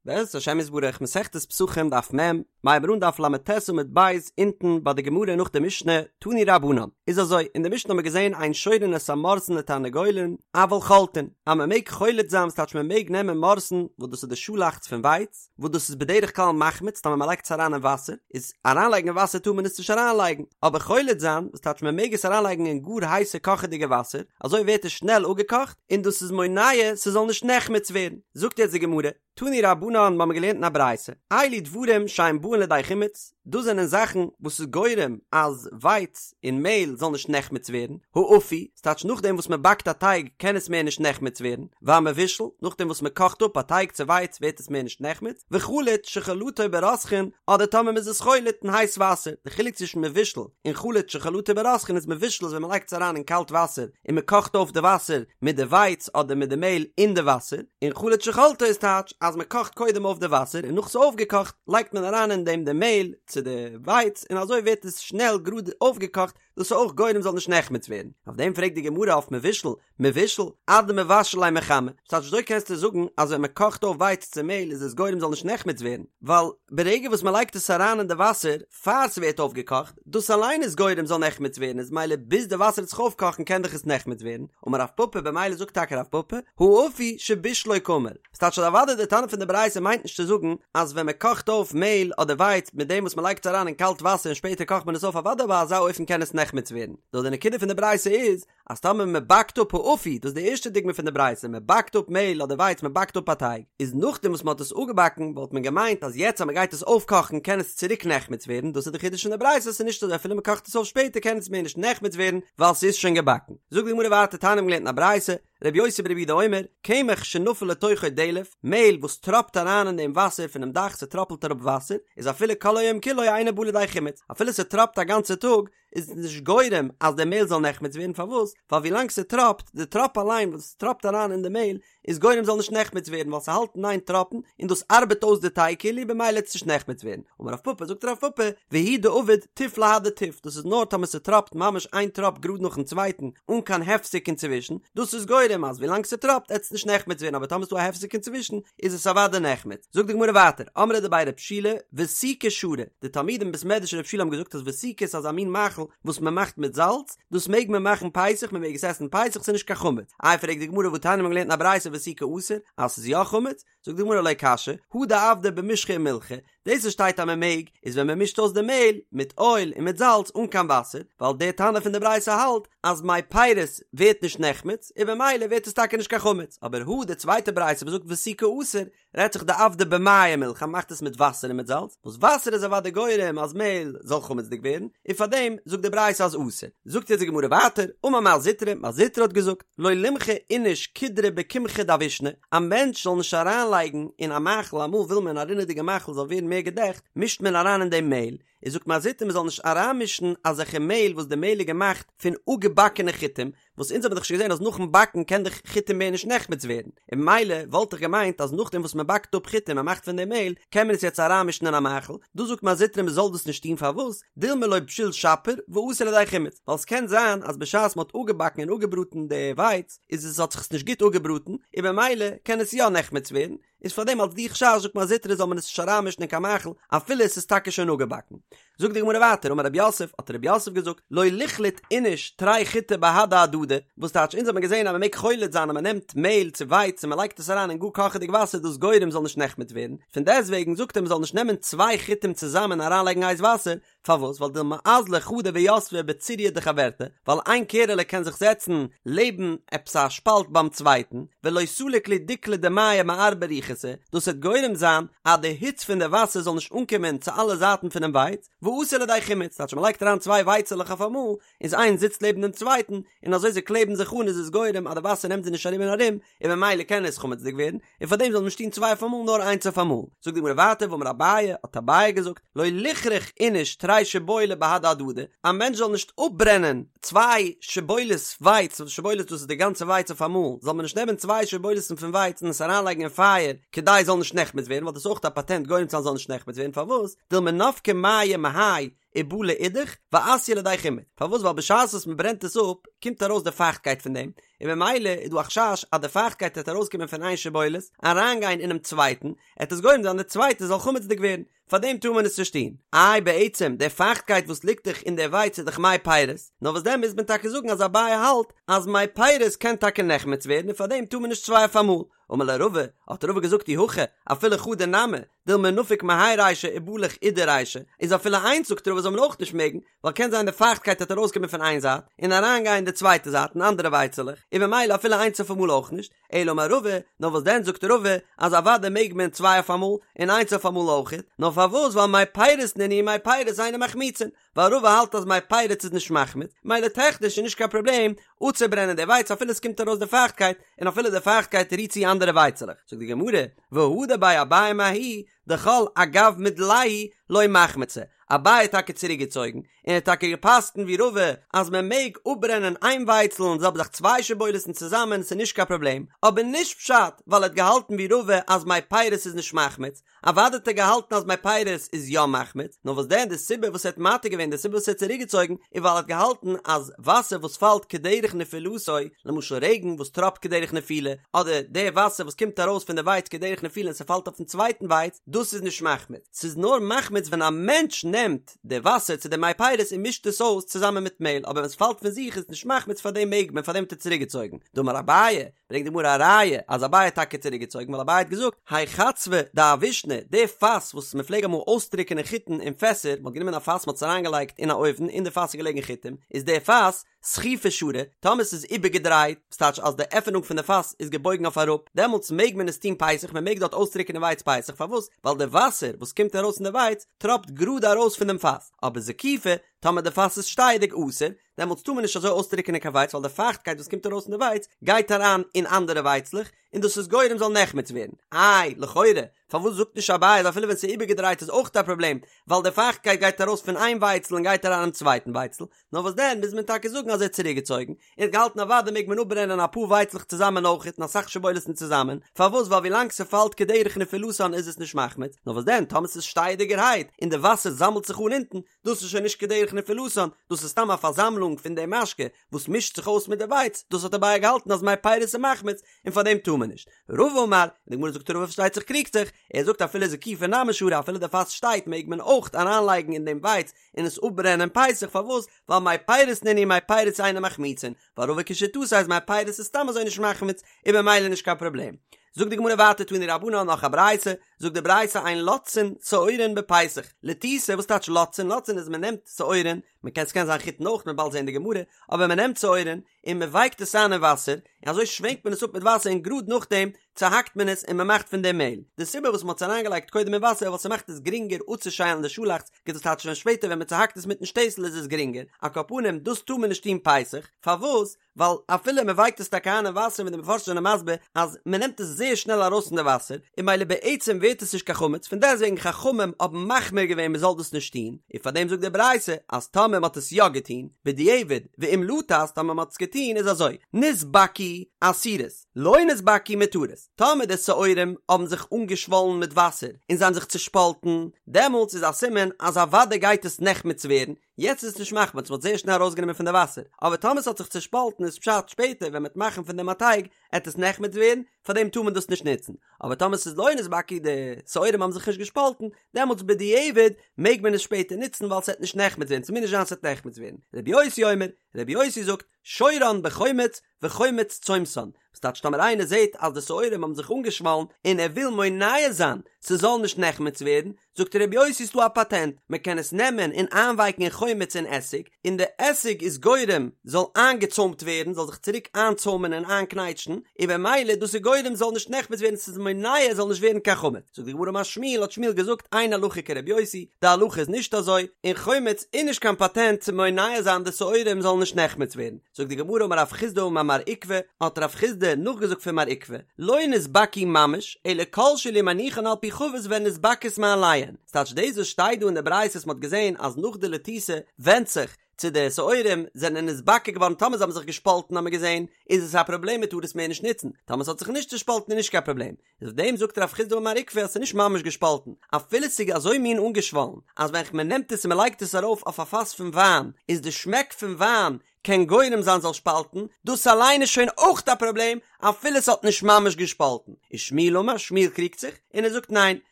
בעזרת השם יתברך מסכת פסחים דף מ', מ'הייבט אן דף ל"ט עמוד ב' אונטן ביי די גמרא נאך די משנה, תנו רבנן, איז אזוי, אין די משנה האבן מיר געזען אין שורין את המורסן לתרנגולין, אבל חולטין, אז מען מעג חולט זיין וואס טייטש מען מעג נעמען מורסן וואס דאס איז די שאלאכץ פון ווייץ, וואס דאס איז בדרך כלל מחמיץ טאמער מען לייגט עס אריין אין וואסער, איז אריינלייגן אין וואסער טאר מען עס נישט אריינלייגן, אבער חולט זיין, וואס טייטש מען מעג עס אריינלייגן אין גאר הייסע קאכעדיגע וואסער, אזוי ווערט עס שנעל אפגעקאכט, און דאס איז מונע ס'זאל נישט נחמץ ווערן. זאגט יעצט די גמרא, תנו רבנן מ'האמיר געלערנט אין א ברייתא, אלו דברים שאין באין לידי חימוץ, דאס זענען זאכן וואס איז גורם אז ווייץ און מעהל זאל נישט נחמץ ווערן, האפוי, ס'טייטש נאכדעם וואס מ'באקט א טייג קען עס מער נישט נחמץ ווערן, והמבושל, נאכדעם וואס מ'קאכט אפ א טייג צו ווייץ ווערט עס מער נישט נחמץ, וחלוט שחלטו ברותחין, אדער טאמער מ'איז עס חולט אין הייס וואסער, די חילוק צווישן מבושל און חלוט שחלטו ברותחין איז מבושל איז ווען מ'לייגט עס אריין אין קאלט וואסער און מ'קאכט אויף די וואסער מיט די ווייץ אדער מיט די מעהל אין די וואסער, און חלוט שחלטו איז טייטש אז מ'קאכט קודם אויף די וואסער און נאך ס'איז אויפגעקאכט לייגט מען אריין אין דעם די מעהל צו די ווייץ און אזוי ווערט עס שנעל גראד אויפגעקאכט, דאס איז אויך גורם זאל נישט נחמץ ווערן. אויף דעם פרעגט די גמרא אויף מבושל, מבושל, אדמבשל ליה מחמא, ס'טייטש וויאזוי קענסטו זאגן אז ווען מען קאכט אויף ווייץ צו מעהל איז עס גורם זאל נישט נחמץ ווערן, ווייל ברגע וואס מען לייגט עס אריין אין די וואסער פאר ס'ווערט אויפגעקאכט, דאס אליין איז גורם זאל נחמץ ווערן איז מילא ביז די וואסער וועט זיך אויפקאכן קען דאך עס נחמץ ווערן, אמר רב פפא במילא זאגט טאקע רב פפא, האפוי שבישלו קאמר, ס'טייטש אז אוודאי די תנא פון די ברייתא מיינט נישט צו זאגן אז ווען מען קאכט אויף מעהל אדער ווייץ מיט דעם וואס מען לייגט עס אריין אין קאלט וואסער און שפעטער קאכט מען עס אויף אוודאי ביי אזא אופן קען עס נחמץ ווערן, נאר די נקודה פון די ברייתא איז אז טאמער מען באקט אפ האפוי, דאס איז די ערשטע דוגמא פון די ברייתא, מען באקט אפ מעהל אדער ווייץ מען באקט אפ א טייג, איז נאכדעם וואס מען האט עס אפגעבאקן וואלט מען געמיינט אז יעצט אז מען גייט עס אויפקאכן קען עס צוריק נחמץ ווערן, דאס איז די חידוש פון די ברייתא ס'איז נישט אזוי אפילו מען קאכט עס אויף שפעטער קען עס מער נישט נחמץ ווערן ווייל ס'איז שוין געבאקן. זאגט די גמרא ווייטער תניא מ'האט געלערנט אין א ברייתא, רבי יוסי ברבי יהודה אומר, קמח שנפל לתוכו דלף, מעהל וואס טראפט אריין אין דעם וואסער פונעם דאך ס'טראפלט אראפ וואסער, איז אפילו כל היום כולו אינו בא לידי חימוץ, אפילו ס'טראפט א גאנצע טאג, איז נישט גורם אז די מעהל זאל נחמץ ווערן, פארוואס? ווייל ווילאנג ס'טראפט, די טראפ אליין וואס טראפט אריין אין די מעהל, איז גורם זאל נישט נחמץ ווערן ווייל ס'האלט אין איין טראפן און דאס ארבעט אויס די טייג כאילו במילא וועט עס נישט נחמץ ווערן, אמר רב פפא זאגט רב פפא והוא דעביד טיף להדי טיף דאס איז נאר טאמער ס'טראפט ממש איין טראפ גראד נאכן צווייטן אן קיין הפסק אינצווישן, דאס איז גורם אז ווילאנג ס'טראפט עט עס נישט נחמץ ווערן אבער טאמער ס'דא א הפסק אינצווישן איז עס אוודאי נחמץ. זאגט די גמרא ווייטער, אמרי דבי רב שילא ותיקא שרי, די תלמידים אין בית מדרש רב שילא האבן געזאגט אז ותיקא איז אזא מין מאכל וואס מ'מאכט מיט זאלץ, דאס מעג מען מאכן פסח, מען מעג עס עסן פסח, ס'איז נישט קיין חמץ. איי פרעגט די גמרא והתניא מ'האט געלערנט אין א ברייתא ותיקא אסור, אז ס'איז יא חמץ? זאגט די גמרא לא קשיא, הא דעבדיה במשחא ומילחא, דאס וואס שטייט אז מען מעג, איז ווען מען מישט אויס די מעהל מיט אויל און מיט זאלץ אן קיין וואסער, ווייל דער תנא פון די ברייתא האלט אז מי פירות ווערט נישט נחמץ, און במילא ווערט עס טאקע נישט קיין חמץ, אבער הא די צווייטע ברייתא וואס זאגט ותיקא אסור, רעדט זיך דעבדיה במיא ומילחא, מ'מאכט עס מיט וואסער און מיט זאלץ, וואס וואסער איז אוודאי גורם אז מעהל זאל חמצ'דיג ווערן, און פארדעם זאגט די ברייתא אז אסור. זאגט יעצט די גמרא ווייטער, אמר מר זוטרא, מר זוטרא האט געזאגט, לא לימחי איניש קודרא בקמחא דאבישנא, א מענטש זאל נישט אריינלייגן אין א מאכל, אמאל וויל מען א רינעדיגע מאכל זאל ווערן מער געדעכט, מישט מען אריין אין דעם מעהל, איז זאגט מר זוטרא מען זאל נישט אריינמישן אזעלכע מעהל וואס די מעהל איז געמאכט פון אפגעבאקענע חיטים, וואס אונז האבן דאך שוין געזען אז נאכן באקן קען דאך חיטים מער נישט נחמץ ווערן, און ממילא וואלט איך געמיינט אז נאכדעם וואס מען באקט אפ חיטים און מאכט פון דעם מעהל, קען מען עס יעצט אריינמישן אין א מאכל, דא זאגט מר זוטרא מען זאל דאס נישט טון פארוואס? דילמא לא בשיל שפיר ואתי לידי חימוץ, ווייל עס קען זיין אז בשעת מען האט אפגעבאקן און אפגעבראטן די ווייץ איז עס האט זיך עס נישט גוט אפגעבראטן און במילא קען עס יא נחמץ ווערן, איז פאר דעם אלס די חשש זאגט מר זוטרא זאל מען עס נישט אריינמישן אין קיין מאכל אפילו עס איז טאקע שוין אפגעבאקן. זאגט די גמרא ווייטער אמר רב יוסף האט רב יוסף געזאגט לא ליחלוט איניש תרי חיטי בהדי הדדי וואס טייטש אונז האט מען געזען אז מען מעג חולט זיין אז מען נעמט מעהל צו ווייץ און מען לייגט עס אריין אין גאר קאכעדיג וואסער דאס גורם זאל נישט נחמץ ווערן פון דעסטוועגן זאגט ער מען זאל נישט נעמען צוויי חיטים צוזאמען אריינלייגן הייס וואסער פארוואס? ווייל דילמא אזלא חדא ויתבא בצוריא דחברתה, ווייל איין קערעלע קען זיך זעצן לעבן עפעס א שפאלט ביים צווייטן, ולא סליק להו דיקלא דמיא מארבע רוחתא, דאס וועט גורם זיין אז די היץ פון די וואסער זאל נישט אנקומען צו אלע זייטן פונעם ווייץ, ואתי לידי חימוץ, טייטש מ'לייגט אריין צוויי ווייצעלעך אויף אמאל, איז איינס זיצט לעבן דעם צווייטן, און אזוי זיי קלעבן זיך אן איז עס גורם אז די וואסער נעמט זיי נישט ארום און ארום, און ממילא קען עס חמצ'דיג ווערן, און פאר דעם זאל מען נישט טון צוויי אויף אמאל נאר איינס אויף אמאל. זאגט די גמרא ווייטער ואמר אביי, האט אביי געזאגט, לא ליחרוך איניש תרי שיבולי בהדי הדדי, א מענטש זאל נישט אפברענען צוויי שיבולת ווייץ, שיבולת דאס איז די גאנצע ווייץ אויף אמאל, זאל מען נישט נעמען צוויי שיבולת'ן פון ווייץ און עס אריינלייגן אין פייער. כדי זאל נישט נחמץ ווערן ווייל דאס איז אויך א פאטענט גורם צו זיין זאל נישט נחמץ ווערן פארוואס דילמא נפקי מיא מהאי ובלע אידך ואתיא לידי חימוד פארוואס ווייל בשעת וואס מען ברענט עס אפ קומט ארויס די פייכטקייט פון דעם און ממילא איז דא א חשש אז די פייכטקייט וועט ארויסקומען פון איין שיבולת אריינגיין אינעם צווייטן עט עס גורם זיין די צווייטע זאל חמצ'דיג ווערן פאר דעם טאר מען עס נישט טון. איי בעצם די פייכטקייט וואס ליגט דאך אין די ווייץ איז דאך מי פירות, נאר וואס דען מוז מען טאקע זאגן אז אביי האלט אז מי פירות קען טאקע נחמץ ווערן און פאר דעם טאר מען נישט צוויי אויף אמאל. אמר ליה רבא, האט רבא געזאגט אי הכי, אפילו חדא נמי, דילמא נפיק מהאי רישא ובלח אידה רישא, איז אפילו איינס זאגט רבא זאל מען אויך נישט מעגן, ווייל קען זיין די פייכטקייט וועט ארויסקומען פון איין זייט און אריינגיין אין די צווייטע זייט אין אנדערע ווייצעלעך, און ממילא אפילו איינס אויף אמאל אויך נישט, אלא אמר רבא, נאר וואס דען זאגט רבא אז אוודאי מעג מען צוויי אויף אמאל און איינס אויף אמאל אויכעט, נאר פארוואס ווייל מי פירות נינהו מי פירות אינן מחמיצין, ווייל רבא האלט אז מי פירות איז נישט מחמיץ, מילא טעכניש איז נישט קיין פראבלעם אפצוברענען די ווייץ אפילו עס קומט ארויס די פייכטקייט און אפילו די פייכטקייט רירט צו אנדערע ווייצעלעך, זאגט די גמרא, והדר ביה אביי מההיא דכל אגב מדלייהו לא מחמצי, אביי האט טאקע צוריק געצויגן, און ער האט טאקע געפסקנט ווי רבא אז מען מעג אפברענען איין ווייצל און זעלבע זאך צוויי שיבולת'ן צוזאמען ס'איז נישט קיין פראבלעם, אבער נישט פשט ווייל ער האט געהאלטן ווי רבא אז מי פירות איז נישט מחמיץ, אוודאי האט ער געהאלטן אז מי פירות איז יא מחמיץ, נאר וואס דען די סיבה וואס ער האט מתיר געווען די סיבה וואס ער האט צוריק געצויגן איז ווייל ער האט געהאלטן אז וואסער וואס פאלט כדרך נפילתו, למשל רעגן וואס טראפט כדרך נפילה, אדער די וואסער וואס קומט ארויס פון די ווייץ כדרך נפילה און ס'פאלט אויפן צווייטן ווייץ, דאס איז נישט מחמיץ, ס'איז נאר מחמיץ ווען א מענטש נעמט די וואסער צו די מי פירות און מישט עס אויס צוזאמען מיט מעהל, אבער ווען ס'פאלט פון זיך איז עס נישט מחמיץ פארדעם מעג מען, פארדעם האט ער צוריקגעצויגן. דאמר אביי, ברענגט די גמרא א ראיה אז אביי האט טאקע צוריקגעצויגן ווייל אביי האט געזאגט, האי חצבא דאבישנא, די פאס וואס מ'פלעג אמאל אויסטריקענען חיטן אין פעסער, מ'האט גענומען א פאס מ'האט עס אריינגעלייגט אין א אויוון, אין די פאס איז געלעגן חיטים, איז די פאס, זקיפא שרי, טאמער ס'איז איבערגעדרייט, וואס טייטש אז די עפענונג פון די פאס איז געבויגן אויף אראפ, דעמאלטס מעג מען עס טון פסח, מען מעג דארט אויסטריקענען ווייץ פסח, פארוואס? ווייל די וואסער וואס קומט ארויס פון די ווייץ טראפט גראד ארויס פון דעם פאס, אבער זקיפא, טאמער די פאס איז שטייעדיג אסור, דעמאלטס טאר מען נישט אזוי אויסטריקענען קיין ווייץ ווייל די פייכטקייט וואס קומט ארויס פון די ווייץ גייט אריין אין אנדערע ווייצלעך, און דאס איז גורם זאל נחמץ ווערן. איי, לכאורה, פארוואס זאגט נישט אביי אז אפילו ווען ס'איז איבערגעדרייט איז אויך א פראבלעם, ווייל די פייכטקייט גייט ארויס פון איין ווייצל און גייט אריין אין צווייטן ווייצל, נאר וואס דען מוז מען טאקע זאגן אז ער האט צוריקגעצויגן, און האט געהאלטן אוודאי מעג מען אפברענען אפאר ווייצלעך צוזאמען אויכעט און אסאך שיבולת'ן צוזאמען, פארוואס ווייל ווילאנג ס'פאלט כדרך נפילתן איז עס נישט מחמיץ, נאר וואס דען טאמער ס'איז שטייעדיגערהייט און די וואסער זאמלט זיך אן אונטן, דאס איז שוין נישט כדרך נפילתן, דאס איז סתם א פארזאמלונג פון די משקה וואס מישט זיך אויס מיט די ווייץ, דאס האט אביי געהאלטן אז מי פירות איז מחמיץ און פאר דעם טאר מען נישט. רבא אמר, און די גמרא זאגט רבא פארשטייט זיך קריגט זיך, ער זאגט אפילו זקיפא נמי שרי אפילו די פאס שטייט מעג מען אויך אריינלייגן אין דעם ווייץ און עס אפברענען פסח פארוואס ווייל מי פירות נינהו מי פירות אינן מחמיצין ווייל רבא כשיטתו אז מי פירות איז סתם אזוי נישט מחמיץ איז במילא נישט קיין פראבלעם. זאגט די גמרא ווייטער תנו רבנן נאך א ברייתא, זאגט די ברייתא אין לותתין שעורין בפסח, לתיתה וואס טייטש לותתין? לותתין איז מען נעמט שעורין, מען קען ס'קען זיין חיטן אויך מ'וועט באלד זען די גמרא, אבער מען נעמט שעורין און מען ווייקט עס איין אין וואסער, און אזוי שווענקט מען עס אפ מיט וואסער און גראד נאכדעם צוהאקט מען עס און מען מאכט פון דעם מעהל. די סיבה וואס מען האט עס אריינגעלייגט קודם אין וואסער ווייל ס'מאכט עס גרינגער אפצושיילן די שאלאכץ, דאס טייטש ווען שפעטער ווען מען צוהאקט עס מיטן שטעסל איז עס גרינגער, על כל פנים דאס טאר מען נישט טון פסח, פארוואס? ווייל אפילו מען ווייקט עס טאקע איין אין וואסער ווי די מפרשים זענען מסביר אז מען נעמט עס זייער שנעל ארויס פון די וואסער און ממילא בעצם ווערט עס נישט קיין חמץ פון דעסטוועגן חכמים האבן מחמיר געווען מען זאל דאס נישט טון און פאר דעם זאגט די ברייתא אז טאמער מען האט עס יא געטון בדיעבד ואם לתת טאמער מען האט עס געטון איז אזוי נתבקעו אסורות לא נתבקעו מותרות טאמער די שעורים האבן זיך אנגעשוואלן מיט וואסער און זיי האבן זיך צושפאלטן דעמאלטס איז א סימן אז אוודאי גייט עס נחמץ ווערן יעצט איז עס נישט מחמץ, מ'האט זייער שנעל ארויסגענומען פון די וואסער, אבער טאמער ס'האט זיך צושפאלטן איז פשט שפעטער ווען מ'עט מאכן פון דעם א טייג עט עס נחמץ ווערן, פארדעם טאר מען דאס נישט נוצן, אבער טאמער ס'איז לא נתבקעו די שעורים האבן זיך נישט געשפאלטן, דעמאלטס בדיעבד מעג מען עס שפעטער נוצן ווייל ס'עט נישט נחמץ ווערן, ס'מוז נישט זיין ס'עט נחמץ ווערן. רבי יוסי אומר, רבי יוסי זאגט, שורן בחומץ וחומץ צומתן, וואס טייטש טאמער איינער זעט אז די שעורים האבן זיך אנגעשוואלן און ער וויל מונע זיין ס'זאל נישט נחמץ ווערן, זאגט רבי יוסי ס'דא א פאטענט, מ'קען עס נעמען און איינווייקן אין חומץ און עסיג, און די עסיג איז גורם זאל איינגעצוימט ווערן, זאל זיך צוריק איינצוימען און איינקנייטשן, און במילא דאס איז גורם זאל נישט נחמץ ווערן ס'איז מונע עס זאל נישט ווערן קיין חמץ. זאגט די גמרא אמר שמואל האט שמואל געזאגט אין הלכה כרבי יוסי, די הלכה איז נישט אזוי, און חומץ איז נישט קיין פאטענט צו מונע זיין די שעורים זאלן נישט נחמץ ווערן. זאגט די גמרא אמר רב חסדא אמר מר עוקבא, האט רב חסדא נאכגעזאגט פון מר עוקבא, לא נתבקעו ממש, אלא כל שאילו מניחן על פי חבית והן נתבקעות מאליהן, ס'טייטש דאס וואס שטייט דא אין די ברייתא וואס מ'האט געזען אז נאך די לתיתה ווענדט זיך צו די שעורים זענען נתבקע געווארן טאמער זיי האבן זיך געשפאלטן האט מען געזען איז עס א פראבלעם מ'טאר עס מער נישט נוצן, טאמער ס'האט זיך נישט צושפאלטן איז נישט קיין פראבלעם, איז אויף דעם זאגט רב חסדא אמר מר עוקבא אז ס'איז נישט ממש געשפאלטן, אפילו ס'איז אזוי מין אנגעשוואלן אז ווען מ'נעמט עס און מ'לייגט עס ארויף אויף א פאס פון וויין איז די שמעק פון וויין קען גורם זיין זאל שפאלטן, דאס אליין איז שוין אויך א פראבלעם אפילו ס'האט נישט ממש געשפאלטן. ושמואל אמר, שמואל קריגט זיך און ער זאגט ניין,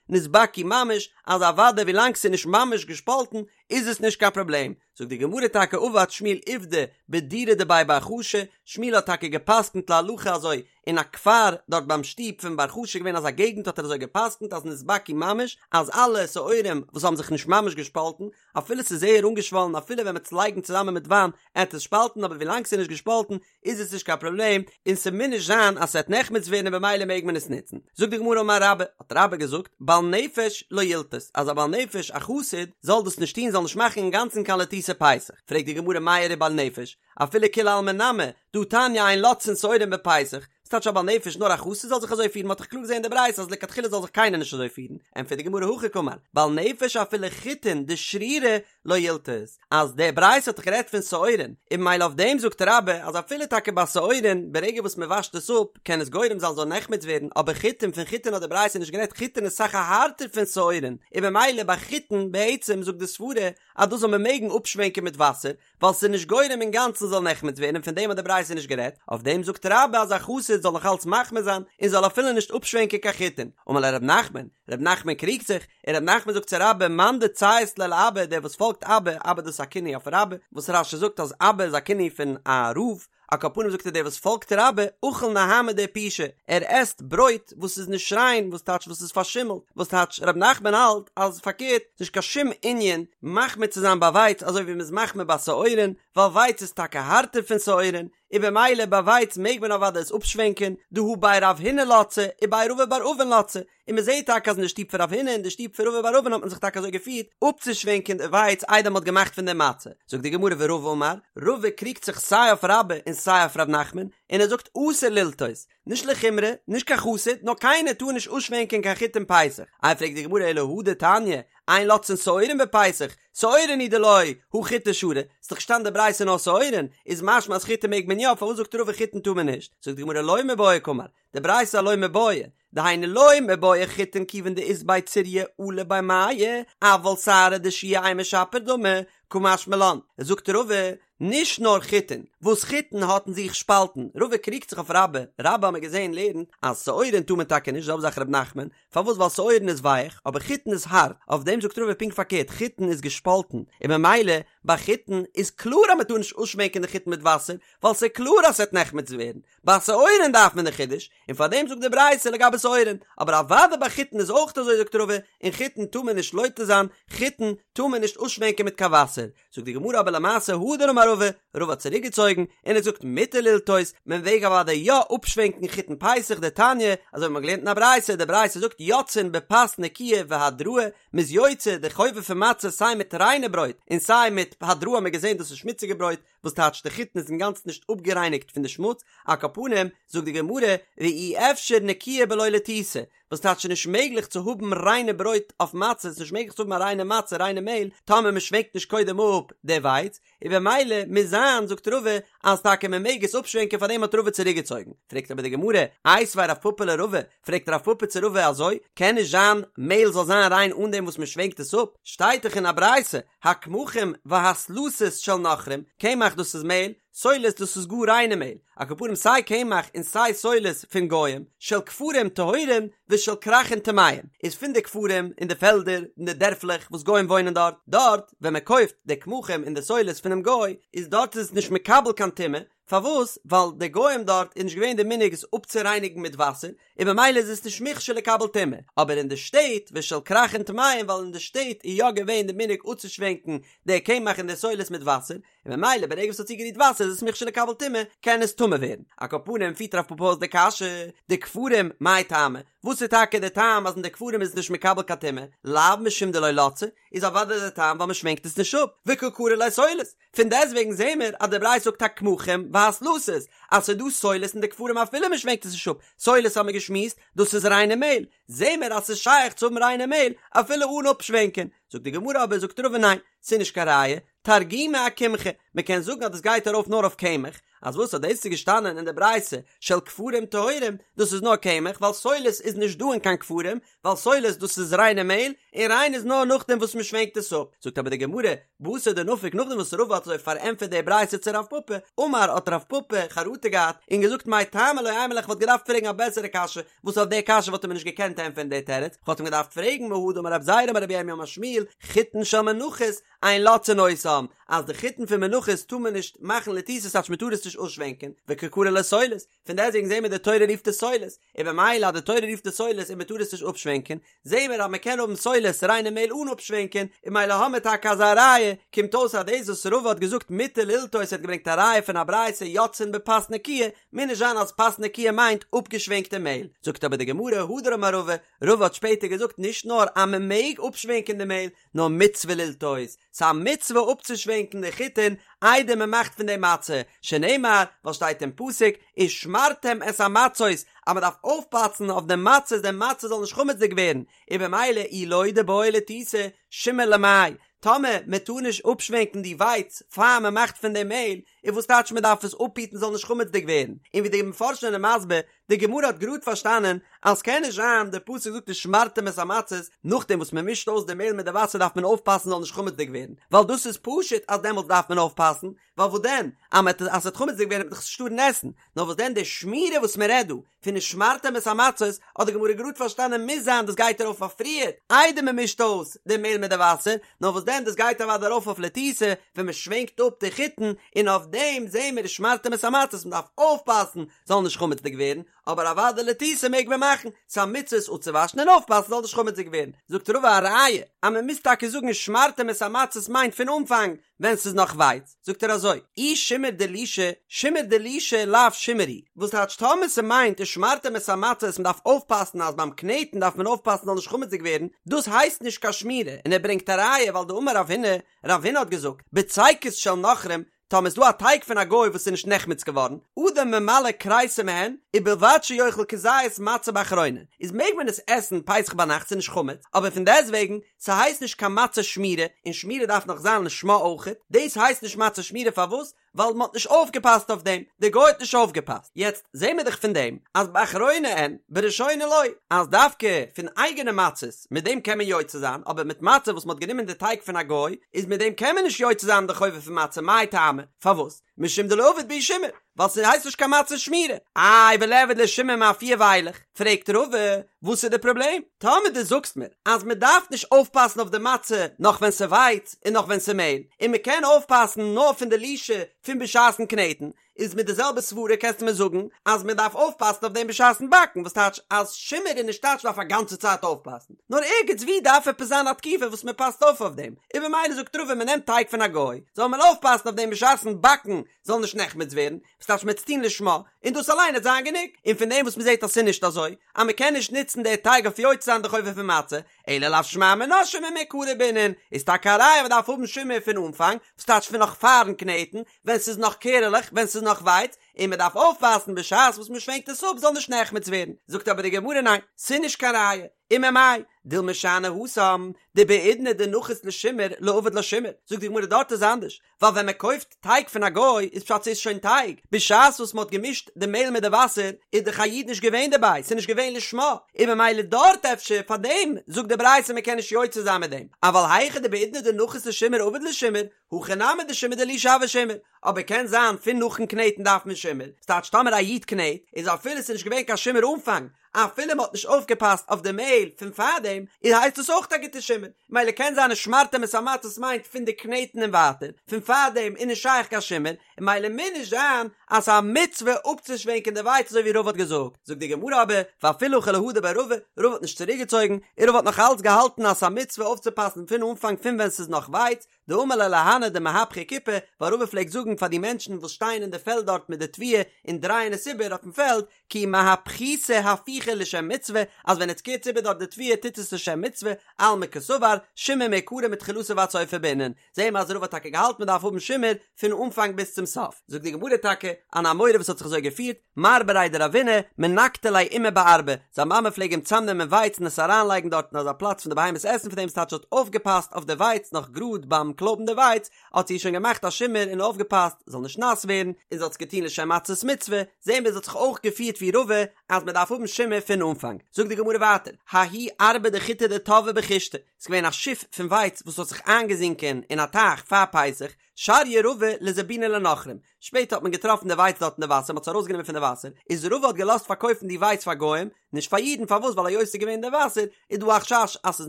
נתבקעו ממש, אז אוודאי ווילאנג ס'איז נישט ממש געשפאלטן איז עס נישט קיין פראבלעם, זאגט די גמרא טאקע עבד שמואל עובדא בדורא דבי בר חשו, שמואל האט טאקע גע'פסק'נט להלכה אזוי אין א כפר דארט ביים שטוב פון בר חשו געווען אזא געגנט האט ער אזוי גע'פסק'נט אז נתבקעו ממש אז אלע שעורים וואס האבן זיך נישט ממש געשפאלטן אפילו ס'איז זייער אנגעשוואלן אפילו ווען מ'עט עס לייגן צוזאמען מיט וויין עט עס שפאלטן אבער ווילאנג ס'איז נישט געשפאלטן איז עס נישט קיין פראבלעם און ס'מוז נישט זיין אז ס'עט נחמץ ווערן און במילא מעג מען עס נוצן. זאגט די גמרא אמר רבה, האט רבה געזאגט, בעל נפש לא ילתות, אז א בעל נפש א חסיד זאל דאס נישט טון זאל נישט מאכן אינגאנצן קיין לתיתה פסח, פרעגט די גמרא מאי איריא בעל נפש, אפילו כולי עלמא נמי, דהא תניא אין לותתין שעורים בפסח, ס'טייטש א בעל נפש נאר א חסיד זאל זיך אזוי פירן, מ'האט דאך קלאר געזען אין די ברייתא אז לכתחילה זאל זיך קיינער נישט אזוי פירן, ענטפערט די גמרא הכי קאמר, בעל נפש אפילו חיטין דשרירי לא ילתות, אז די ברייתא האט דאך גערעדט פון שעורין, און ממילא אויף דעם זאגט רבה אז אפילו טאקע ביי שעורין ברגע וואס מען וואשט עס אפ קען עס גורם זיין זאל נחמץ ווערן, אבער חיטין פון חיטין האט די ברייתא נישט גערעדט חיטין איז אסאך הארטער פון שעורין, און ממילא ביי חיטין בעצם זאגט די סברה אז דאס זאל מען מעגן אפשווענקען מיט וואסער, ווייל ס'איז נישט גורם אינגאנצן זאל נחמץ ווערן און פון דעם האט די ברייתא נישט גערעדט, אויף דעם זאגט רבה אז א חסיד זאל נאך אלץ מחמיר זיין און זאל אפילו נישט אפשווענקען קיין חיטין, אמר ליה רב נחמן, רב נחמן קריגט זיך, און רב נחמן זאגט צו רבה מאן דציית ליה לאבא דער וואס פאלגט אבא, אבא דאס איז א כינוי אויף רבה, וואס רש"י זאגט אז אבא איז א כינוי פון א רב, על כל פנים זאגט ער דער וואס פאלגט רבה, אכיל נהמא דעיפושא, ער עסט ברויט וואס איז נישט ריין, וואס טייטש וואס איז פארשימלט, וואס טייטש רב נחמן האלט אז פארקערט, ס'נישט קיין שום ענין מחמיר צו זיין ביי ווייץ אזוי ווי מ'איז מחמיר ביי שעורין, ווייל ווייץ איז טאקע הארטער פון שעורין, און במילא ביי ווייץ מעג מען אוודאי עס אפשווענקען, דהא בי רב הונא לצי ובי רבא בר אבין לצי, און מען זעט טאקע אז אין די שטוב פון רב הונא און די שטוב פון רבא בר אבין האט מען זיך טאקע אזוי געפירט אפצושווענקען די ווייץ איידער מען האט געמאכט פון דעם מצה. זאגט די גמרא ורבא אמר, רבא קריגט זיך סיי אויף רבה און סיי אויף ר' נחמן, און ער זאגט אסור ללתות, נישט לחומרא, נישט קיין חסיד, נאר קיינער טאר נישט אפשווענקען קיין חיטים פסח. איי פרעגט די גמרא אלא הא דתניא, אין לותתין שעורים בפסח, שעורין הוא דלא, הא חיטי שרי, ס'איז דאך געשטאנען די ברייתא נאר שעורין, איז משמע אז חיטים מעג מען יא, פארוואס זאגט רבא חיטין טאר מען נישט? זאגט די גמרא לא מיבעיא קאמר, די ברייתא לא מיבעיא, דהיינו לא מיבעיא חיטין כיוון דאית ביה ציריא עלה ביה מיא, אבל שערא דשוע אימא שפיר דמי, קא משמע לן, זאגט רבא, נישט נאר חיטין, וואס חיטין האט אין זיך שפאלטן, רבא קריגט זיך אויף רבה, רבה האמיר געזען לערנט אז שעורין טאר מען טאקע נישט, זעלבע זאך ר' נחמן, פארוואס ווייל שעורין איז ווייך, אבער חיטין איז הארט, אויף דעם זאגט רבא פונקט פארקערט, חיטין איז געשפאלטן, און ממילא ביי חיטין איז קלאר אז מען טאר נישט אפשווענקען די חיטין מיט וואסער, ווייל ס'איז קלאר אז ס'וועט נחמץ ווערן, ביי שעורין דארף מען די חידוש, און פאר דעם זאגט די ברייתא לגבי שעורין, אבער אוודאי ביי חיטין איז אויך אזוי זאגט רבא, און חיטין טאר מען נישט לותת זיין, חיטין טאר מען נישט אפשווענקען מיט קיין וואסער, זאגט די גמרא אבער למעשה הדר אמר רבא, רבא האט צוריק געצויגן, און ער זאגט מותר ללתות, מען מעג אוודאי יא אפשווענקן חיטין פסח דתניא, אזוי ווי מען האט געלערנט אין א ברייתא, די ברייתא זאגט יוצאין בפת נקיה והדראה, מען איז יוצא די חובה פון מצה סיי מיט ריינע ברויט און סיי מיט הדראה האט מען געזען דאס איז שמוציגע ברויט, וואס טייטש די חיטין איז אינגאנצן נישט אפגערייניגט פון די שמוץ, על כל פנים, זאגט די גמרא, ואי אפשר נקיה בלא לתיתה, וואס טייטש ס'איז נישט מעגליך צו האבן ריינע ברויט אויף מצה, ס'איז נישט מעגליך צו האבן א ריינע מצה, ריינע מעהל, טאמער מען שווענקט נישט קודם אפ די ווייץ, און במילא מוז זיין, זאגט רבא, אז טאקע מען מעג עס אפשווענקען פארדעם האט רבא צוריקגעצויגן. פרעגט אבער די גמרא, איתיביה רב פפא לרבא, פרעגט רב פפא צו רבא אזוי, קען נישט זיין מעהל זאל זיין ריין אן דעם וואס מען שווענקט עס אפ, שטייט דאך אין א ברייתא, הקמחים והסלתות של נכרים, קמח דאס איז מעהל, סולת דאס איז גאר ריינע מעהל, על כל פנים סיי קמח און סיי סולת פון גוים, של כפרים טהורים ושל כרכין טמאים, איז פון די כפרים אין די פעלדער אין די דערפלעך וואס גוים וואוינען דארט, דארט ווען מען קויפט די קמחים און די סולת פונעם גוי, איז דארט איז עס נישט מקבל קיין טומאה, פארוואס? ווייל די גוים דארט איז נישט געווען די מנהג עס אפצורייניגן מיט וואסער, און במילא איז עס נישט מוכשר לקבל טומאה, אבער אין די שטעט ושל כרכין טמאים ווייל אין די שטעט איז יא געווען די מנהג אפצושווענקן די קמח און די סולת מיט וואסער, און במילא ברגע וואס ס'האט צוגערירט וואסער איז עס מוכשר לקבל טומאה, קען עס טמא. טמא ווערן. על כל פנים פירט רב פפא אויס די קשיא, דכפרים מאי טעמא, וואס איז טאקע די טעם אז אין די כפרים איז עס נישט מקבל קיין טומאה, לאו משום דלא לצה, איז אוודאי די טעם ווייל מ'שווענקט עס נישט אפ, וקא קרי ליה סולת, פון דעסטוועגן זעהן מיר אז די ברייתא זאגט הקמחים והסלתות, אז ס'איז דא סולת אין די כפרים אפילו מ'שווענקט עס נישט אפ, סולת האמיר געשמועסט, דאס איז ריינע מעהל, זעהן מיר אז ס'איז שייך צו האבן ריינע מעהל אפילו אן אפשווענקען, זאגט די גמרא אבער זאגט רבא ניין, ס'איז נישט קיין ראיה, תרגומא אקמחא, מ'קען זאגן אז דאס גייט ארויף נאר אויף קמח, אז וואס אז דאס איז געשטאנען אין די ברייתא של כפרים טהורים, דאס איז נאר קמח, ווייל סולת איז נישט דא אין קיין כפרים, ווייל סולת דאס איז ריינע מעהל, און ריין איז נאר נאכדעם וואס מ'שווענקט עס אפ, זאגט אבער די גמרא, בתר דנפק נאכדעם וואס רבא האט אזוי פארענטפערט די ברייתא צו רב פפא, אמר האט רב פפא חרטה געהאט און געזאגט מאי טעמא לא אימא ליה כ'וואלט געדארפט פרעגן א בעסערע קשיא, וואס אויף די קשיא וואלט ער מיר נישט געקענט ענטפערן די תירוץ, כ'וואלט אים געדארפט פרעגן מהא דאמר רב זירא אמר רבי ירמיה אמר שמואל, חיטין של מנחות, אין לוצצין אותן, אז די חיטין פון מנחות טאר מען נישט מאכן לתיתה ס'טייטש מען טאר עס נישט אויסשווענקען, וקא קרי לה סולת, פון דעסטוועגן זעהן מיר די תורה רופט עס סולת, און במילא אז די תורה רופט עס סולת און מען טאר עס נישט אפשווענקען, זעהן מיר אז מען קען האבן סולת ריינע מעהל אן אפשווענקען, און ממילא האמיר טאקע אזא ראיה, קומט אויס אז דאס וואס רבא האט געזאגט מותר ללתות ער האט געברענגט א ראיה פון א ברייתא יוצאין בפת נקיה, מוז נישט זיין אז פת נקיה מיינט אפגעשווענקטע מעהל, זאגט אבער די גמרא הדר אמר רבא, רבא האט שפעטער געזאגט נישט נאר אז מען מעג אפשווענקען די מעהל, נאר מצוה ללתות, ס'איז א מצוה אפצושווענקן די חיטין איידער מען מאכט פון דעם מצה, שנאמר, ווייל שטייט אין פסוק, ושמרתם את המצות, אז מען דארף אויפפאסן אויף די מצות די מצה זאל נישט חמצ'דיג ווערן, און במילא אי לא דבעי לתותי, שימור למאי, טאמער מען טאר נישט אפשווענקן די ווייץ פאר מען מאכט פון דעם מעהל, איז וואס טייטש מען דארף עס אפהיטן זאל נישט חמצ'דיג ווערן, און ווי די מפרשים זענען מסביר, די גמרא האט גראד פארשטאנען אז ס'קען נישט זיין, די פסוק זאגט ושמרתם את המצות, נאכדעם וואס מען מישט אויס די מעהל מיט די וואסער דארף מען אויפפאסן זאל נישט חמצ'דיג ווערן, ווייל דאס איז פשוט אז דעמאלטס דארף מען אויפפאסן, ווייל וואס דען אז מען אז ס'וועט חמצ'דיג ווערן וועט מען דאך עס נישט טארן עסן, נאר וואס דען די שמירה וואס מען רעדט דא פון ושמרתם את המצות האט די גמרא גראד פארשטאנען מוז זיין דאס גייט ארויף אויף פריער איידער מען מישט אויס די מעהל מיט די וואסער, נאר וואס דען דאס גייט אוודאי ארויף אויף לתיתה ווען מען שווענקט אפ די חיטן, און אויף דעם זעהן מיר ושמרתם את המצות מען דארף אויפפאסן זאל נישט חמצ'דיג ווערן, אבער אוודאי לתיתה מעג מען מאכן, ס'איז א מצוה עס אפצואוואשן און אויפפאסן זאל נישט חמצ'דיג ווערן, זאגט רבא א ראיה אז מען מוז טאקע זאגן ושמרתם את המצות מיינט פון אנפאנג ווען ס'איז נאך ווייץ, זאגט ער אזוי, אי שימור דלישה, שימור דלישה לאו שימור הוא, וואס טייטש טאמער ס'מיינט ושמרתם את המצות מ'דארף אויפפאסן אז ביים קנעטן דארף מען אויפפאסן זאל נישט חמצ'דיג ווערן, דאס הייסט נישט קיין שמירה, און ער ברענגט א ראיה ווייל דאמר רב הונא, רב הונא האט געזאגט, בצקות של נכרים, טאמער איז דא א טייג פון א גוי וואס איז נישט נחמץ געווארן, אדם ממלא כריסו מהן, ובלבד שיאכל כזית מצה באחרונה, איז מעג מען עס עסן פסח ביינאכט ס'איז נישט חמץ, אבער פון דעסטוועגן, ס'הייסט נישט קיין מצה שמורה, און שמירה דארף נאך זיין לשמה אויכעט, דאס הייסט נישט מצה שמורה פארוואס? ווייל מ'האט נישט אויפגעפאסט אויף דעם, די גוי האט נישט אויפגעפאסט, יעצט זעהן מיר דאך פון דעם אז באחרונה אין, בראשונה לא, אז דווקא פון אייגענע מצות, מיט דעם קען מען יוצא זיין, אבער מיט מצה וואס מ'האט גענומען די טייג פון א גוי, איז מיט דעם קען מען נישט יוצא זיין די חובה פון מצה, מאי טעמא? פארוואס? משום דלא עביד בהו שימור, ווייל ס'הייסט נישט קיין מצה שמורה. איי וליעבד ליה שימור מאפייה ואילך? פרעגט רבא, וואס איז די פראבלעם? טאמער דו זאגסט מיר אז מ'דארף נישט אויפפאסן אויף די מצה נאך ווען ס'ווייץ און נאך ווען ס'מעהל, און מ'קען אויפפאסן נאר פון די לישה פון בשעת'ן קנעטן, איז מיט די זעלבע סברה קענסטו מיר זאגן אז מען דארף אויפפאסן אויף דעם בשעת'ן באקן, וואס טייטש אז שימור איז נישט טייטש מ'דארף א גאנצע צייט אויפפאסן, נאר ערגעץ ווי דארף עפעס זיין א תקופה וואס מען פאסט אויף אויף דעם, און במילא זאגט רבא מען נעמט טייג פון א גוי, זאל מען אויפפאסן אויף דעם בשעת'ן באקן זאל נישט נחמץ ווערן, וואס טייטש מען וועט עס טון לשמה, און דאס אליין וועט זיין גענוג, און פון דעם וואס מען זעט אז ס'איז נישט אזוי, אז מען קען נישט נוצן די טייג אויף יוצא זיין די חובה פון מצה, אלא לאו שמע מינה שימור מעיקרא בעינן, איז טאקע א ראיה מען דארף האבן שימור פון אנפאנג, וואס טייטש פון נאך פארן קנעטן, ווען ס'איז נאך קערעלעך, ווען ס'איז נאך ווייץ, און מען דארף אויפפאסן בשעת וואס מען שווענקט עס אפ זאל נישט נחמץ ווערן, זאגט אבער די גמרא ניין, ס'איז נישט קיין ראיה, וממאי, דילמא שאני התם, דבעידנא דנחית לשימור לא עביד לה שימור, זאגט די גמרא דארט איז אנדערש, ווייל ווען מען קויפט טייג פון א גוי איז פשט ס'איז שוין טייג, בשעת וואס מען האט געמישט די מעהל מיט די וואסער איז דאך א איד נישט געווען דערביי, ס'איז נישט געווען לשמה, און ממילא דארט אפשר פאר דעם זאגט די ברייתא מען קען נישט יוצא זיין מיט דעם, אבל היכא דבעידנא דנחית לשימור עביד לה שימור, הכא נמי דשימור דלישה הוי שימור, אבער קען זיין פון נאכן קנעטן דארף מען שימור, ס'טייטש טאמער א איד קנעט איז אפילו ס'איז נישט געווען קיין שימור אנפאנג, אפילו מ'האט נישט אויפגעפאסט אויף די מעהל פון פארדעם, איז הייסט עס אויך א גוטע שימור, מילא קען זיין ושמרתם את המצות מיינט פון די קנעטן און ווייטער, פון פארדעם איז נישט שייך קיין שימור, און מילא מוז נישט זיין. אז ס'איז א מצוה אפצושווענקען די ווייץ אזוי ווי רבא האט געזאגט, זאגט די גמרא אבער, ואפילו הכי לא הדר ביה רבא, רבא האט נישט צוריקגעצויגן, און רבא האט נאך אלץ געהאלטן אז ס'איז א מצוה אויפצופאסן פון אנפאנג פון ווען ס'איז נאך ווייץ, דאמר להו להנהו דמהפכי כיפי, ווייל רבא פלעגט זאגן פאר די מענטשן וואס שטייען אין די פעלד דארט מיט די תבואה און דרייען עס איבער אויפן פעלד, כי מהפכיתו הפיכה לשם מצוה, אז ווען עטס קערטס איבער דארט די תבואה טוט עס לשם מצוה, אלמא קסבר, שימור מעיקרא מתחילתו ועד סופו בעינן, זעהן מיר אז רבא האט טאקע געהאלטן מען דארף האבן שימור פון אנפאנג ביז צום סוף. זאגט די גמרא טאקע, אן אמורא וואס האט זיך אזוי געפירט, מר בריה דרבינא, מנקטא ליה אימיה בארבא, זיין מאמע פלעג אים צאמנעמען ווייץ און עס אריינלייגן דארט אין אזא פלאץ פון די בהמות עסן פון דעם ס'טייטש האט אויפגעפאסט אויף די ווייץ נאך גראד ביים קלויבן די ווייץ האט זי שוין געמאכט א שימור און אויפגעפאסט זאל נישט נאס ווערן און זי האט עס געטון לשם מצות מצוה, זעהן מיר זי האט זיך אויך געפירט ווי רבא אז מען דארף האבן שימור פון אנפאנג. זאגט די גמרא ווייטער, ההיא ארבא דחיטי דטבעא בכושתא, ס'איז געווען א שיף פון ווייץ וואס האט זיך איינגעזינקען אין א טייך פאר פסח, שריא רבא לזבונה לנכרים, שפעטער האט מען געטראפן די ווייץ דארט אין די וואסער, מען האט עס ארויסגענומען פון די וואסער, איז רבא האט געלאזט פארקויפן די ווייץ פאר גוים, נישט פאר אידן, פארוואס ווייל היות ס'איז געווען אין די וואסער, איז דא א חשש אז ס'איז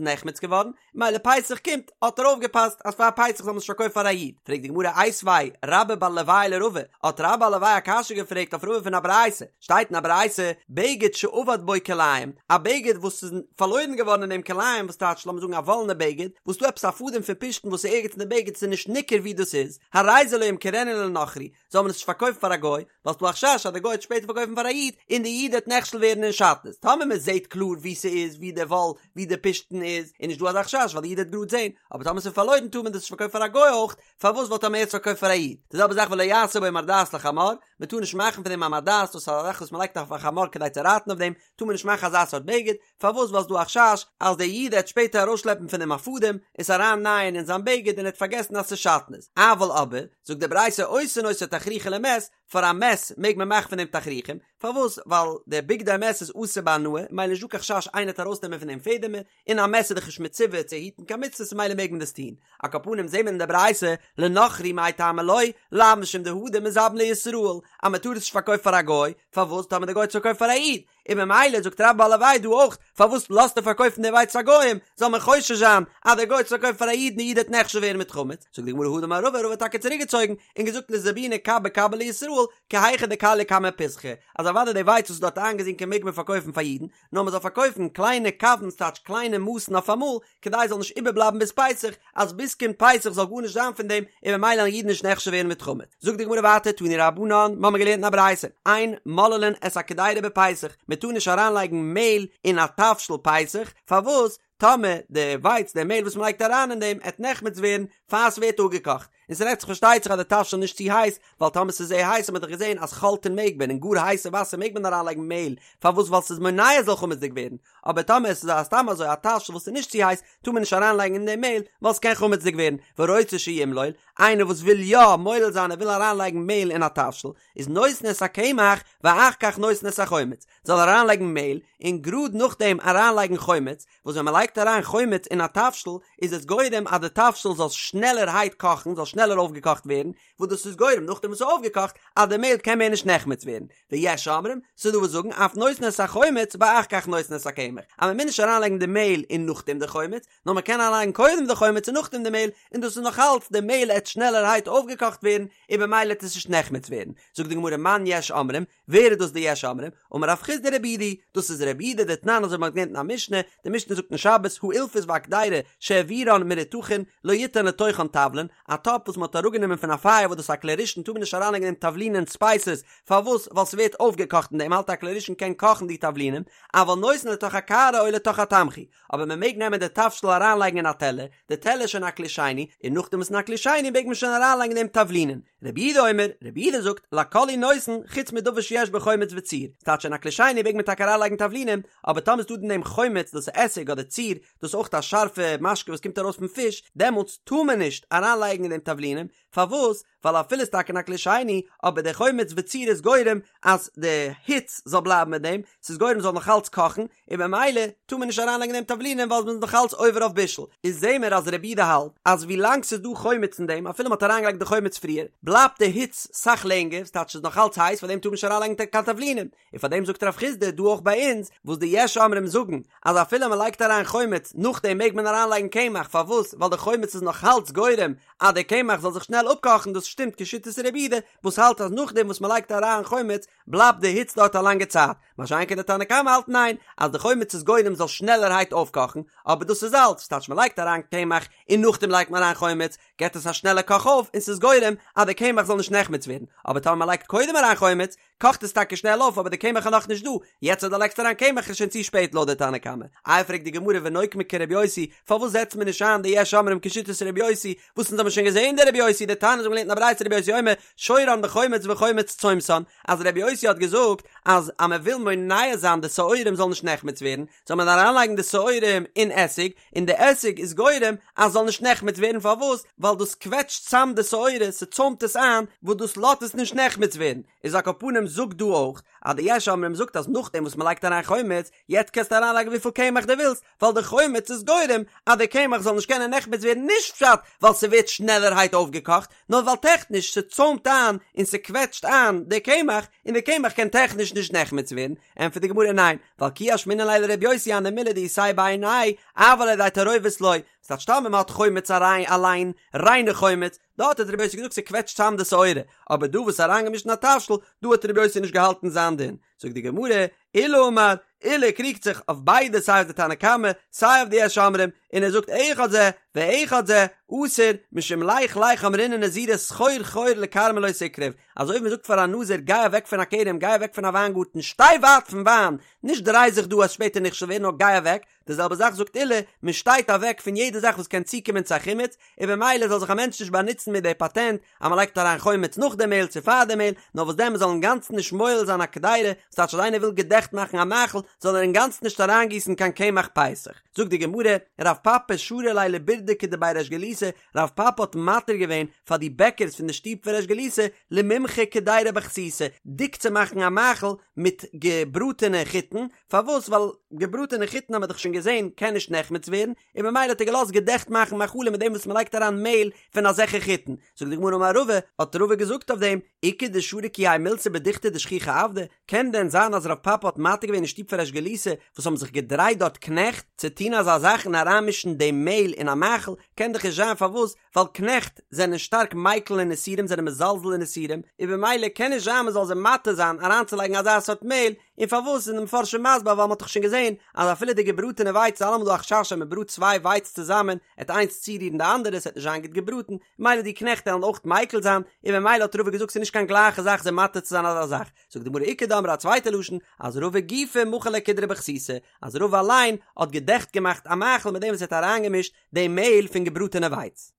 נחמץ געווארן, מילא פסח קומט, האט ער אויפגעפאסט אז פאר פסח זאל מען עס נישט פארקויפן פאר א איד, פרעגט די גמרא איתיביה רבה בר ליואי לרבא, האט רבה בר ליואי א קשיא געפרעגט אויף רבא פון א ברייתא, שטייט אין א ברייתא, בגד שאבד בו כלאים, א בגד וואס איז פארלוירן געווארן אין דעם כלאים, וואס טייטש לאמיר זאגן א וואלענע בגד, וואס דא עפעס א פאדעם פון פשתן וואס איז ערגעץ אין די בגד ס'איז נישט ניכר ווי דאס איז, הרי זה לא ימכרנו לנכרי, זאל מען עס נישט פארקויפן פאר א גוי, ווייל ס'דא א חשש אז די גוי וועט שפעטער פארקויפן פאר א איד, און די איד וועט נכשל ווערן אין שעטנז, טאמער מען זעט קלאר ווי ס'איז, ווי די וואל, ווי די פשתן איז, איז נישט דא אזא חשש ווייל די איד וועט גראד זען, אבער טאמער ס'איז פארלוירן טאר מען דאס נישט פארקויפן פאר א גוי אויך, פארוואס ווייל טאמער ער האט עס פארקויפט פאר א איד, די זעלבע זאך ולא יעשה בו מרדעת לחמור, מען טאר נישט מאכן פון דעם א מרדעת, דאס איז א זאך וואס מען לייגט אויף א חמור כדי צו רייטן אויף דעם, טאר מען נישט מאכן אזא סארט בגד, פארוואס ווייל ס'דא א חשש אז דער איד העט שפעטער ארויסשלעפן פון דעם א פאדעם, עס אריין נייען אין זיין בגד און ער העט פארגעסן אז ס'איז שעטנז, אבל אבער, זאגט די ברייתא עושין אותו תכריכין למת, פאר א מת מעג מען מאכן פון דעם תכריכים, פארוואס ווייל דער בגדי מת איז אסור בהנאה, מילא נישט דא קיין חשש איינער העט ארויסנעמען פון דעם פעדעמער, און א מת איז דאך נישט מצווה צו היטן קיין מצוות ממילא מעג מען דאס טון, על כל פנים זעהן מיר אין די ברייתא לנכרי מאי טעמא לא, לאו משום דהדר מזבין לישראל, אז מען טאר עס נישט פארקויפן פאר א גוי, פארוואס טאמער די גוי האט עס פארקויפט פאר א איד, און ממילא זאגט רבה בר ליואי דא אויך, פארוואס לאזט ער פארקויפן די ווייץ פאר גוים, זאל מען חושש זיין אז דער גוי האט עס פארקויפט פאר א איד און די איד וועט נכשל ווערן מיט חמץ, זאגט די גמרא הדר אמר רבא, רבא האט טאקע צוריק געצויגן און געזאגט לזבוני קבא קבא לישראל, כי היכי דכליא קמי פסחא, אז אוודאי די ווייץ וואס איז דארט איינגעזינקען מעג מען פארקויפן פאר אידן, נאר מען זאל פארקויפן קליינע קבין ס'טייטש קליינע מאסן אויפאמאל, כדי עס זאל נישט איבערבלייבן ביז פסח, אז ביז קומט פסח זאל גארנישט זיין פון דעם, און ממילא וועלן אידן נישט נכשל ווערן מיט חמץ. זאגט די גמרא ווייטער תנו רבנן, מ'האמיר געלערנט אין א ברייתא, אין מוללין את הקדירה בפסח, מען טאר נישט אריינלייגן מעהל אין א תבשיל פסח, פארוואס? טאמער די ווייץ די מעהל וואס מען לייגט אריין אין דעם עט נחמץ ווערן פאר ס'ווערט אפגעקאכט, און ס'רעדט זיך פארשטייט זיך אז די תבשיל איז נישט צו הייס, ווייל טאמער ס'איז זייער הייס האט מען דאך געזען אז חלטין מעג מען, אין גאר הייסע וואסער מעג מען אריינלייגן מעהל, פארוואס ווייל ס'איז מונע עס זאל חמצ'דיג ווערן, אבער טאמער עס איז א סתם אזוי א תבשיל וואס איז נישט צו הייס טאר מען נישט אריינלייגן אין דעם מעהל ווייל ס'קען חמצ'דיג ווערן, והרוצה שימלול, איינער וואס וויל יא מולל זיין ער וויל אריינלייגן מעהל אין א תבשיל, איז נותן את הקמח ואחר כך נותן את החומץ, זאל ער אריינלייגן מעהל און גראד נאכדעם אריינלייגן חומץ, וואס ווען מ'לייגט אריין חומץ אין א תבשיל איז עס גורם אז די תבשיל זאל שנעלערהייט קאכן, זאל שנעלער אויפגעקאכט ווערן, וואס דאס איז גורם נאכדעם וואס ס'איז אויפגעקאכט אז די מעהל קען מער נישט נחמץ ווערן, ויש אומרים, ס'איז דא וואס זאגן אף נותן את החומץ ואחר כך נותן את הקמח, אז מ'מוז נישט אריינלייגן די מעהל און נאכדעם די חומץ, נאר מ'קען אריינלייגן קודם די חומץ און נאכדעם די מעהל, און דאס איז נאך אלץ די מעהל עט שנעלערהייט אויפגעקאכט ווערן, און במילא עט עס נישט נחמץ ווערן. זאגט די גמרא מאן יש אומרים, ווער איז דאס די יש אומרים? אמר רב חסדא רבי יהודה, דאס איז רבי יהודה דתנן אזוי ווי מ'האט געלערנט אין א משנה, די משנה זאגט אין שבת האילפס והקדירה שהעבירן מרותחין לא יתן לתוכן תבלין, א טאפ וואס מ'האט אראפגענומען פון א פייער וואס דאס איז א כלי ראשון טאר מען נישט אריינלייגן אין דעם תבלינים ספייסעס, פארוואס? ווייל ס'ווערט אויפגעקאכט אין דעם האלט א כלי ראשון קען קאכן די תבלינים, אבל נותן לתוך הקערה או לתוך התמחוי, אבער מ'מעג נעמען די תבשיל אריינלייגן אין א טעלער, די טעלער איז שוין א כלי שני, און נאכדעם וואס אין א כלי שני מעג מען שוין אריינלייגן אין דעם תבלינים. רבי יהודה אומר, רבי יהודה זאגט, לכל הוא נותן, חוץ מדבר שיש בו חומץ וציר. ס'טייטש אין א כלי שני מעג מען טאקע אריינלייגן תבלינים, אבער טאמער איז דא אין דעם חומץ, דאס איז עסיג אדער ציר, דאס איז אויך א שארפע משקה וואס קומט ארויס פון פיש, דעמאלטס טאר מען נישט אריינלייגן אין דעם תבלינים, פארוואס? ווייל אפילו איז טאקע אין א כלי שני, אבער דער חומץ וציר איז גורם אז די היץ זאל בלייבן מיט דעם, ס'איז גורם ס'זאל נאך אלץ קאכן, און במילא טאר מען נישט אריינלייגן אין דעם תבלינים ווייל מ'איז נאך אלץ עובר אויף בישול. איז זעהן מיר אז רבי יהודה האלט אז ווי לאנג ס'איז דא חומץ אין דעם אפילו מ'האט אריינגעלייגט די חומץ פריער, בלייבט. בלייבט די היץ סאך לענגער, ס'טייטש ס'איז נאך אלץ הייס, פארדעם טאר מען נישט אריינלייגן קיין תבלינים, און פארדעם זאגט רב חיסדא דא אויך ביי אונז, וואס די יש אומרים זאגן אז אפילו מען לייגט אריין חומץ נאכדעם מעג מען אריינלייגן קמח, פארוואס? ווייל די חומץ איז נאך אלץ גורם אז די קמח זאל זיך שנעל אפקאכן, דאס שטימט כשיטת רבי יהודה וואס האלט אז נאכדעם וואס מען לייגט אריין חומץ בלייבט די היץ דארט א לאנגע צייט, מה שאין כן די תנא קמא האלט ניין, אז די חומץ איז גורם זאל שנעלערהייט אויפקאכן, אבער דאס איז אלץ, ס'טייטש מען לייגט אריין קמח און נאכדעם לייגט מען אריין חומץ, געט עס א שנעלע קאך אויף און ס'איז גורם אז די קמח זאל נישט נחמץ ווערן, אבער טאמער מען לייגט קודם אריין חומץ, קאכט עס טאקע שנעל אויף אבער די קמח איז נאכנישט דא, יעצט אז דו לייגסט אריין קמח איז שוין צו שפעט לויט די תנא קמא. איי פרעגט די גמרא ונוקמה כרבי יוסי, פארוואס זעצט מען נישט איין די יש אומרים כשיטת רבי יוסי, וואס אונז האבן שוין געזען די רבי יוסי דתניא אונז האבן געלערנט אין א ברייתא רבי יוסי אומר שורן בחומץ וחומץ צומתן, אז רבי יוסי האט געזאגט אז אז מען וויל מונע זיין די שעורים זאלן נישט נחמץ ווערן, זאל מען אריינלייגן די שעורים אין עסיג, און די עסיג איז גורם אז ס'זאל נישט נחמץ ווערן פארוואס? ווייל דאס קוועטשט צאם די שעורה, ס'צוימט עס איין, וואס דאס לאזט עס נישט נחמץ ווערן, איז על כל פנים זאגט דא אויך אז די יש אומרים זאגט אז נאכדעם וואס מ'לייגט אריין חומץ, יעצט קענסטו אריינלייגן וויפיל קמח דו ווילסט, ווייל די חומץ איז גורם אז די קמח זאל נישט קענען נחמץ ווערן נישט פשט ווייל ס'ווערט שנעלערהייט אויפגעקאכט, נאר ווייל טעכניש ס'צוימט איין און ס'קוועטשט איין די קמח, און די קמח קען טעכניש נישט נחמץ ווערן, ענטפערט די גמרא ניין, ווייל כי אשמעינן ליה לר' יוסי הני מילי דאיתיה בעיניה, אבל על ידי תערובת לא, ס'טייטש טאמער מ'האט חומץ אריין אליין, ריינע חומץ, דארט האט ר' יוסי געזאגט ס'קוועטשט צאם די שעורה, אבער דא וואס איז אריינגעמישט אין א תבשיל, דא האט ר' יוסי נישט געהאלטן זיין דין. זאגט די גמרא, עולא אמר, עולא קריגט זיך אויף ביידע סיי אויף די תנא קמא סיי אויף די יש אומרים, און ער זאגט אחד זה ואחד זה אסור משום לך לך אמרינהו נזירא סחור סחור לכרמא לא תקרב, אזוי ווי מען זאגט פאר א נזיר גיי אוועק פון א כרם גיי אוועק פון א וויינגארטן שטיי ווייט פון וויין, נישט דריי זיך דא אז שפעטער נכשל ווערן נאר גיי אוועק, די זעלבע זאך זאגט עולא, מען שטייט אוועק פון יעדע זאך וואס קען צוקומען צו א חימוץ, און במילא זאל זיך א מענטש נישט באנוצן מיט די פאטענט אז מען לייגט אריין חומץ נאך די מעהל צו פאר די מעהל, נאר וואס דען מען זאל אינגאנצן נישט מועל זיין א קדירה, ס'טייטש אז איינער וויל געדעכט מאכן א מאכל זאל ער אינגאנצן נישט אריינגיסן קיין קמח פסח. זאגט די גמרא, רב פפא שרא ליה לבירדקי דבי ריש גלותא, רב פפא האט מתיר געווען פאר די בעקערס פון די שטוב פון ריש גלותא למימחי קדירה בחסיסי, דיק צו מאכן א מאכל מיט געבראטענע חיטן, פארוואס? ווייל געבראטענע חיטן האבן מיר דאך שוין געזען קען נישט נחמץ ווערן, און במילא האט ער געלאזט געדעכט מאכן מאכלים מיט דעם וואס מען לייגט אריין מעהל פון אזעלכע חיטן. זאגט די גמרא אמר רבא, האט רבא געזאגט אויף דעם, איכא דשרי כי האי מילתא בדוכתא דשכיחי עבדי, קען דען זיין אז רב פפא האט מתיר געווען אין שטוב פון ריש גלותא וואס האבן זיך געדרייט דארט קנעכט, צו טון אזא זאך און אריינמישן דעם מעהל אין א מאכל, קען דאך נישט זיין פארוואס? ווייל קנעכט זענען שטארק מיקל אין איסורים זענען מזלזל אין איסורים, און במילא קען נישט זיין מען זאל זיי מתיר זיין אריינצולייגן אזא סארט מעהל, און פארוואס איז די מפרשים מסביר ווייל מען האט דאך שוין געזען אז אפילו די געבראטענע ווייץ איז אלעמאל דא א חשש אז מען בראט צוויי ווייץ צוזאמען עט איינס צורירן די אנדערע ס'עט נישט זיין גוט געבראטן, ממילא די קנעכט עלן אויך מיקל זיין, און במילא האט רבא געזאגט ס'איז נישט קיין גלייכע זאך זיי מתיר צו זיין אזא זאך, זאגט די גמרא איכא דאמרי א צווייטע לשון אז רבא גופיה מחי ליה קדרא בחסיסי אז רבא אליין האט געדעכט געמאכט א מאכל מיט דעם וואס ער האט אריינגעמישט די מעהל פון געבראטענע ווייץ.